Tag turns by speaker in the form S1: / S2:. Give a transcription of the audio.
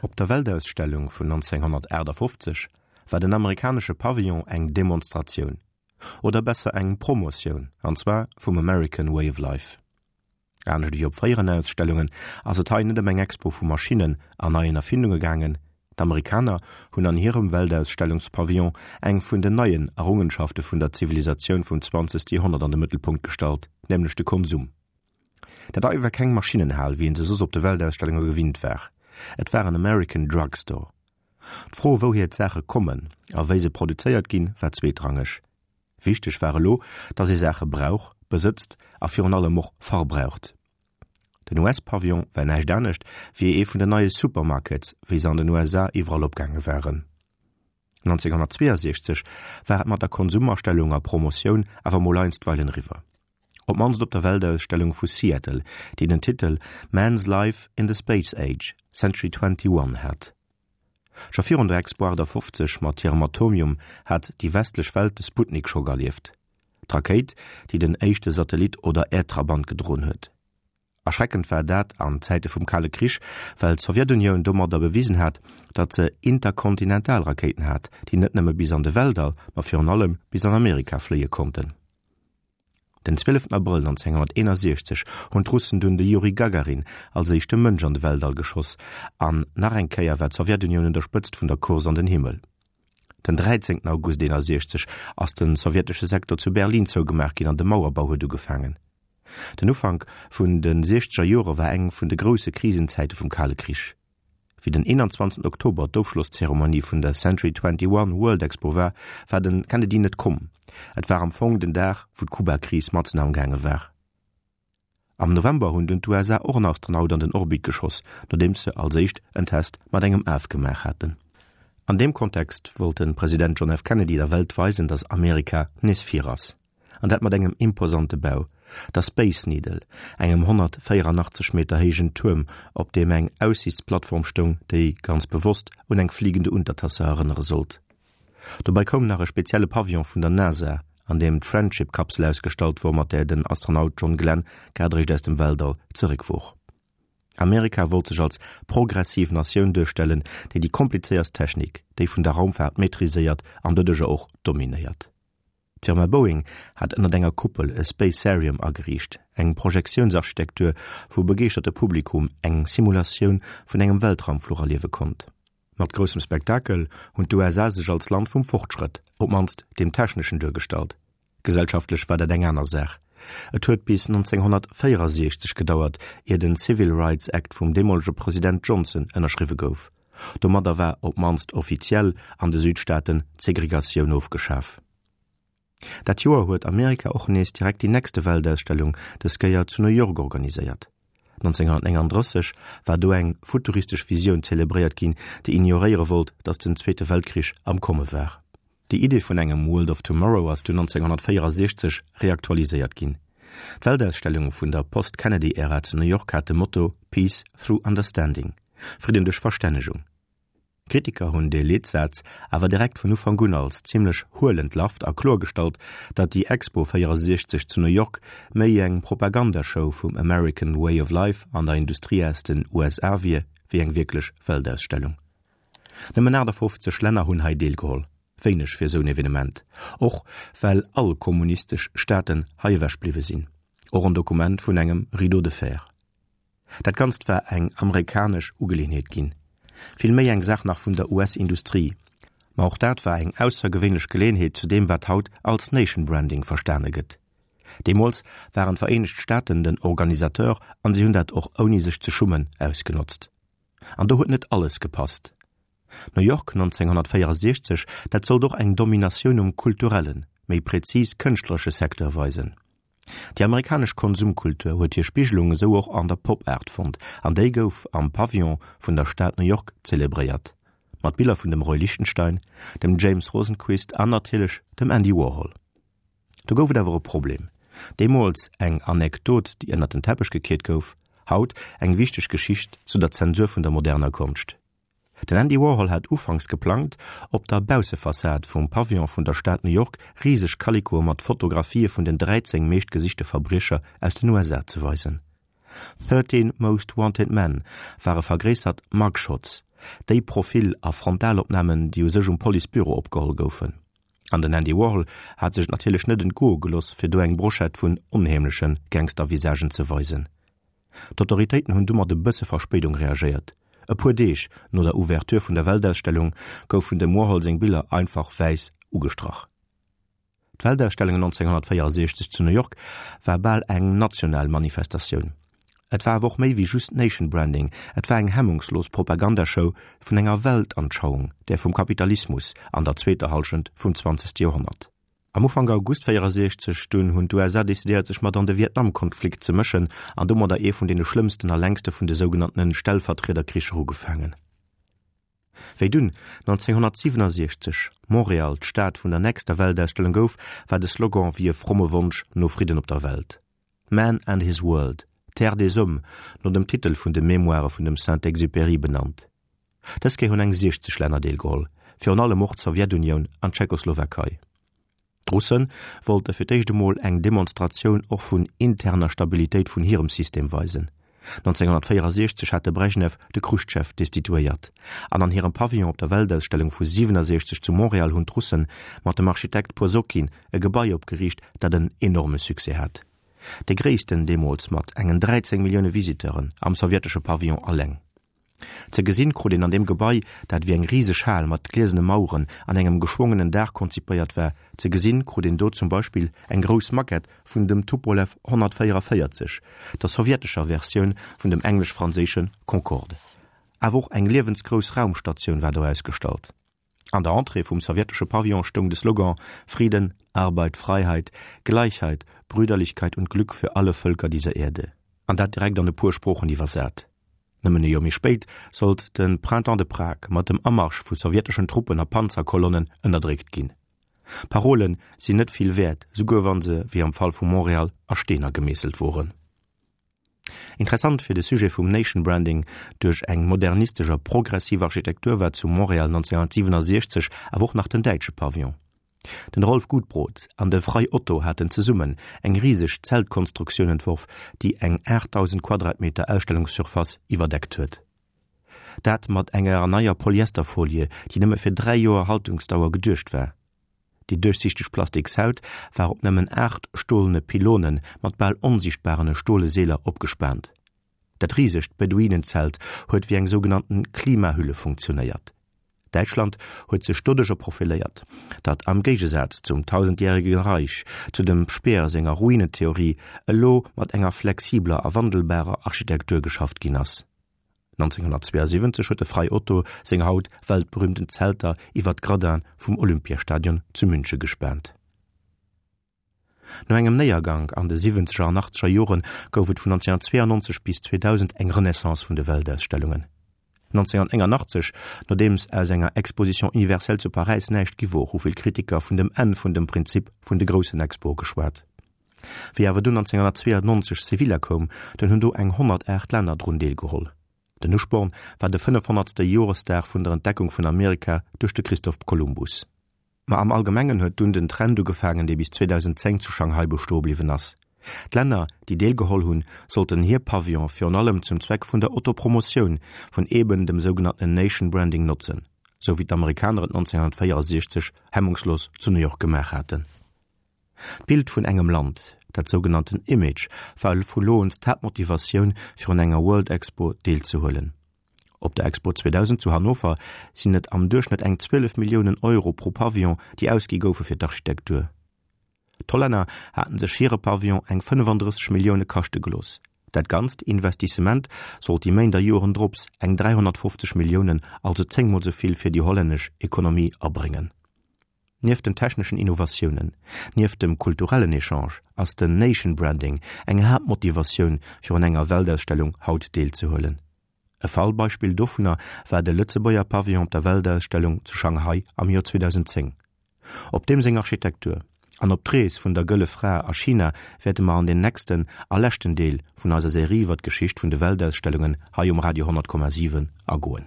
S1: Op der Weltausstellung vun 1958 war den amerikanesche Pavillon eng Demonstratioun, oder besser eng Promotioun, an zwar vum American Way of Life. Anescht ewéi op fréieren Ausstellungen ass et hei net ëm eng Expo vu Maschinnen an neien Erfindunge gaangen. D'Amerikaner hunn an hirem Weltausstellungspavillon eng vun den neien Errungenschafte vun der Zivilisatioun vum zwanzegste Joerhonnert an de Mëttelpunkt gestallt, nämlech de Konsum. Dat hei war keng Maschinnenhal, wéi een se soss op de Weltausstellunge gewinnt war. Et war en American Drug Store. D'Fro, wouhier d'Saache kommen a wéi se produzéiert ginn, war zweetrangeg. Wichteg war elo, datt ee Saache brauch, besëtzt a virun allem och verbraucht. Den US-Pavillon war näischt anescht wéi ee vun den neie Supermarkets, wéi se an den USA iwwerall opgaange waren. 1962 war et mat der Konsumastellung a Promotioun awer mol einstweilen eriwwer. Op d'mannst op der Weltausstellung vu Seattle, déi den Titel Man's Life in the Space Age, Century 21 hat. Scho virun der Expo 58 mat hirem Atomium hat déi westlech Welt de Sputnik-Schock erlieft, d'Rakéit, déi den éischte Satellit oder Äerdtrabant gedroen huet. Erschreckend war dat an Zäite vum Kale Krich, well d'Sowjetunioun domadder bewisen hat, datt se Interkontinentalrakéiten hat, déi net nëmme bis an de Weltall, ma virun allem bis an Amerika fléie konnten. Den 12 Abrëll 1961 hunn d'Russen dunn de Juri Gagarin als éischte Mënsch an de Weltall geschoss an nach eng Kéier war d'Sowjetunioun un der Spëtzt vun der Course an den Himmel. Den 13 August 61 ass de sowjetesche Sektor zu Berlin zougemaach ginn an de Mauerbau huet ugefaangen. Den Ufank vun de siechzeger Jore war eng vun de grousse Krisenzäite vum Kale Krich. Wéi den 21 Oktober d'Ofschlosszeremonie vun der Century 21 World Expo war, war den Kennedy net komm. Et war am Fong den Dag, wou d'Kuba-Kris matzen amgaange war. Am November hunn dunn d'USA och en Astronaut an den Orbit geschoss, nodeems se als éischt en Test mat engem Af gemaach haten. An deem Kontext wollt de President John F. Kennedy der Welt weisen, datt Amerika nees vir ass. An dat mat engem imposante Bau, der Space Needle, engem 184 Meter héijen Tuerm, op deem eng Aussiichtsplattform stoung, déi, ganz bewosst, un eng fliegende Untertasse erënnere sollt. Dobäi koum nach e spezielle Pavillon vun der NASA, an deem d'Friendship-Kapsel ausgestallt wor, mat där den Astronaut John Glenn grad eréischt aus dem Weltall zeréck wor. Amerika wollt sech als progressiv Natioun duerstellen, déi déi komplizéierst Technik, déi vun der Raumfaart, maîtriséiert an doduercher och dominéiert. D'Firma Boeing hat ënnert enger Kuppel e Spacearium ageriicht, eng Projektiounsarchitektur, wou e begeeschterte Publikum eng Simulatioun vun engem Weltraumfluch erliewe konnt. Mat groussem Spektakel hunn d'USA sech als Land vum Fortschrëtt, op d'mannst deem techneschen, duergestallt. Gesellschaftlech war dat eng aner Saach. Et huet bis 1964 gedauert, ier den Civil Rights Act vum deemolege President Johnson ënnerschriwwe gouf. Domadder war op d'mannst offiziell an de Südstaaten d'Segregatioun ofgeschaf. Dat Joer huet Amerika och nees direkt déi nächste Weltausstellung, dës Kéier zu New York organiséiert. 1939 war do eng futuristesch Visioun zelebréiert ginn, déi ignoréiere wollt, datt den Zweete Weltkrich am Komme war. Déi Idee vun engem World of Tomorrow ass dunn 1964 reaktualiséiert ginn. D'Weltausstellung vun der Post-Kennedy-Ära zu New York hat de Motto Peace through Understanding, Fridden duerch Verstännegung. Kritiker hunn dee Leetsaz awer direkt vun Ufank un als zimmlech huel entlarvt a kloergestallt, datt déi Expo 64 zu New York méi eng Propagandashow vum American Way of Life an der Industrie aus den USA wier, wéi eng wierklech Weltausstellung. Nëmmen 58 Länner hunn hei deelgeholl, wéineg fir esou en Evenement, och well all kommunistesch Staaten hei ewech bliwwe sinn. Och en Dokument vun engem Rideau de fer. Dat Ganzt war eng amerikanesch Ugeleeënheet ginn, vill méi eng Saach nach vun der US-Industrie. Ma och dat war eng aussergewéinlech Geleeënheet zu deem, wat haut als Nation Branding verstane gëtt. Deemools waren d'Vereenegt Staaten den Organisateur an si hunn dat och ouni sech ze schummen ausgenotzt. An do huet net alles gepasst. New York 1964, dat sollt och eng Dominatioun um kulturellen, méi prezis kënschtleresche Secteur weisen. Déi amerikanesch Konsumkultur huet hir Spigelung esou och an der Pop-Art fonnt, an déi gouf am Pavillon vun der Stad New York zelebréiert, mat Biller vun dem Roy Lichtenstein, dem James Rosenquist an natierlech dem Andy Warhol. Do gouf et awer e Problem, deemools eng Anekdot, déi ënnert den Teppech gekiert gouf, haut eng wichteg Geschicht zu der Zensur vun der moderner Konscht. Den Andy Warhol hat ufanks geplangt, op der Baussefassad vum Pavillon vun der Stad New York riseg Kalikoe mat Fotografië vun den 13 meeschtgesichte Verbriecher aus den USA ze weisen. 13 Most Wanted Men ware vergréissert Mugshots. Déi Profil a Frontalopnamen, déi u sech um Policebüro opgeholl goufen. An den Andy Warhol hat sech et natierlech net entgoe geloss, fir do eng Brochette vun onheemleche Gangstervisagen ze weisen. D'Autoritéiten hunn du mat e bësse Verspéidung reagéiert. E puer Deeg no der Ouverture vun der Weltausstellung goufen dem Warhol seng Biller einfach wäiss ugestrach. D'Weltausstellung 1964 zu New York war bal eng national Manifestatioun. Et war awer och méi wéi just Nation Branding, et war eng hemmungslos Propagandashow vun enger Weltanschauung, där vum Kapitalismus an der zweeter Hallschent vum zwanzegste Joerhonnert. Am Ufank August 64 dunn hunn d'USA decidéiert sech mat an de Vietnamkonflikt ze mëschen an domadder ee vun deene schlëmmsten a längste vun de sougenanntene Stellvertriederkricher ugefaangen. Wéi dunn 1967 Montréal d'Stad vun der nächster Weltausstellung gouf, war de Slogan wéi e fromme Wonsch no Fridden op der Welt, Man and his World, Terre des Hommes, no dem Titel vun de Memoire vun dem Saint-Exupéry benannt. Dës Kéier hunn eng 60 Länner deelgeholl, virun allem och d'Sowjetunioun an d'Tschechoslowakei. D'Russe wollte fir d'éischt emol eng Demonstratioun och vun interner Stabilitéit vun hirem System weisen. 1964 hat de Brejnew de Chruschtschow destituéiert, an an hirem Pavillon op der Weltausstellung vu 67 zu Montréal hunn d'Russe mat dem Architekt Posokin e Gebai opgeriicht, dat en enorme Succès hat. Dee gréissten deemools mat engen 13 Millioune Visiteuren am sowjetesche Pavillon alleng. Ze gesinn krut een an deem Gebai, dat wéi eng riseg Hal mat gliesene Maueren an engem geschwongenen Daach konzipéiert war, ze gesinn krut een do zum Beispill eng grouss Maquette vun dem Tupolew 144, der sowjetescher Versioun vun dem englesch-franséische Concorde. Awer och eng liewensgrouss Raumstatioun war do ausgestallt. An der Entrée vum sowjetesche Pavillon stoung de Slogan Frieden, Arbeit, Freiheit, Gleichheit, Brüderlichkeit und Glück für alle Völker dieser Erde, an dat direkt an e puer Sproochen iwwersat. Nëmmen e Joer méi spéit sollt de Printemps de Prague mat dem Amarsch vu sowjeteschen Truppen a Panzerkolonnen ënnerdréckt ginn. Parole sinn net vill wäert, souguer wa se, wéi am Fall vu Montréal, a Steener gemeesselt woren. Interessant fir de Sujet vum Nation Branding duerch eng modernistesch a progressiv Architektur war zu Montréal 1967 awer och nach den däitsche Pavillon. Den Rolf Gutbrod an de Frei Otto haten zesummen eng riseg Zeltkonstruktioun entworf, déi eng 8.000 Quadratmeter Ausstellungssurface iwwerdeckt huet. Dat mat enger neier Polyesterfolie, déi nëmme fir 3 Joer Haltungsdauer geduecht war. Déi duerchsichteg Plastikshaut war op nëmmen 8 stolene Pylone mat bal onsichtbarene stole Seeler opgespaant. Dat risegt Beduinenzelt huet wéi eng sougenannten Klimahülle funktionéiert. Däitschland huet sech doduercher profiléiert, datt am Géigesaz zum Tausendjährigen Reich, zu dem Speer senger Ruinentheorie, elo mat enger flexibler a wandelbarer Architektur geschafft ginn ass. 1972 huet de Frei Otto seng haut weltberühmten Zelter iwwer d'Gradin vum Olympiastadion zu Münche gespaant. No engem Néiergank an de siwwenzeger an achtzeger Jore gouf et vun 1992 bis 2000 eng Renaissance vun de Weltausstellungen. 1989, nodeems aus enger Exposition universelle zu Paräis näischt gi wor, hu vill Kritiker vun dem Enn vun dem Prinzip vun de groussen Expoe geschwat. Wéi awer dunn 1992 Sevilla koum, dunn hunn do eng 108 Länner drun deelgeholl. Den Usporn war de 500. Joresdag vun der Entdeckung vun Amerika duerch de Christoph Kolumbus. Ma am Allgemengen huet dunn den Trend ugefaangen, dee bis 2010 zu Shanghai bestoe bliwwen ass. D'Länner, déi deelgeholl hunn, sollten hir Pavillon virun allem zum Zweck vun der Autopromotioun vun eben dem sougenanntenen Nation Branding notzen, sou wéi d'Amerikaner et 1964 hemmungslos zu New York gemaach haten. D'Bild vun engem Land, dat sougenannten Image, war vu lo un d'Haaptmotivatioun fir un enger World Expo deelzehuelen. Op der Expo 2000 zu Hannover sinn et am Duerchschnëtt eng 12 Milliounen Euro pro Pavillon, déi ausgi goufe fir d'Architektur. D'Hollänner haten sech hire Pavillon eng 35 Millioune kaschte gelooss. Dat ganzt Investissement sollt déi Méint a Joren drops eng 350 Milliounen, also zéngmol sou vill fir déi hollännesch Ekonomie abréngen. Nieft den techneschen Innovatiounen, nieft dem kulturellen Echange ass den Nation Branding eng Haaptmotivatioun fir un enger Weltausstellung haut deelzehuelen. E Fallbeispill dovunner war de Lëtzebuerger Pavillon op der Weltausstellung zu Shanghai am Joer 2010. Op deem seng Architektur an op d'Rees vun der Gëlle Fra a China wäerte mer an den nächsten a leschten Deel vun eiser Serie iwwer d'Geschicht vun de Weltausstellungen hei um Radio 100,7 agoen.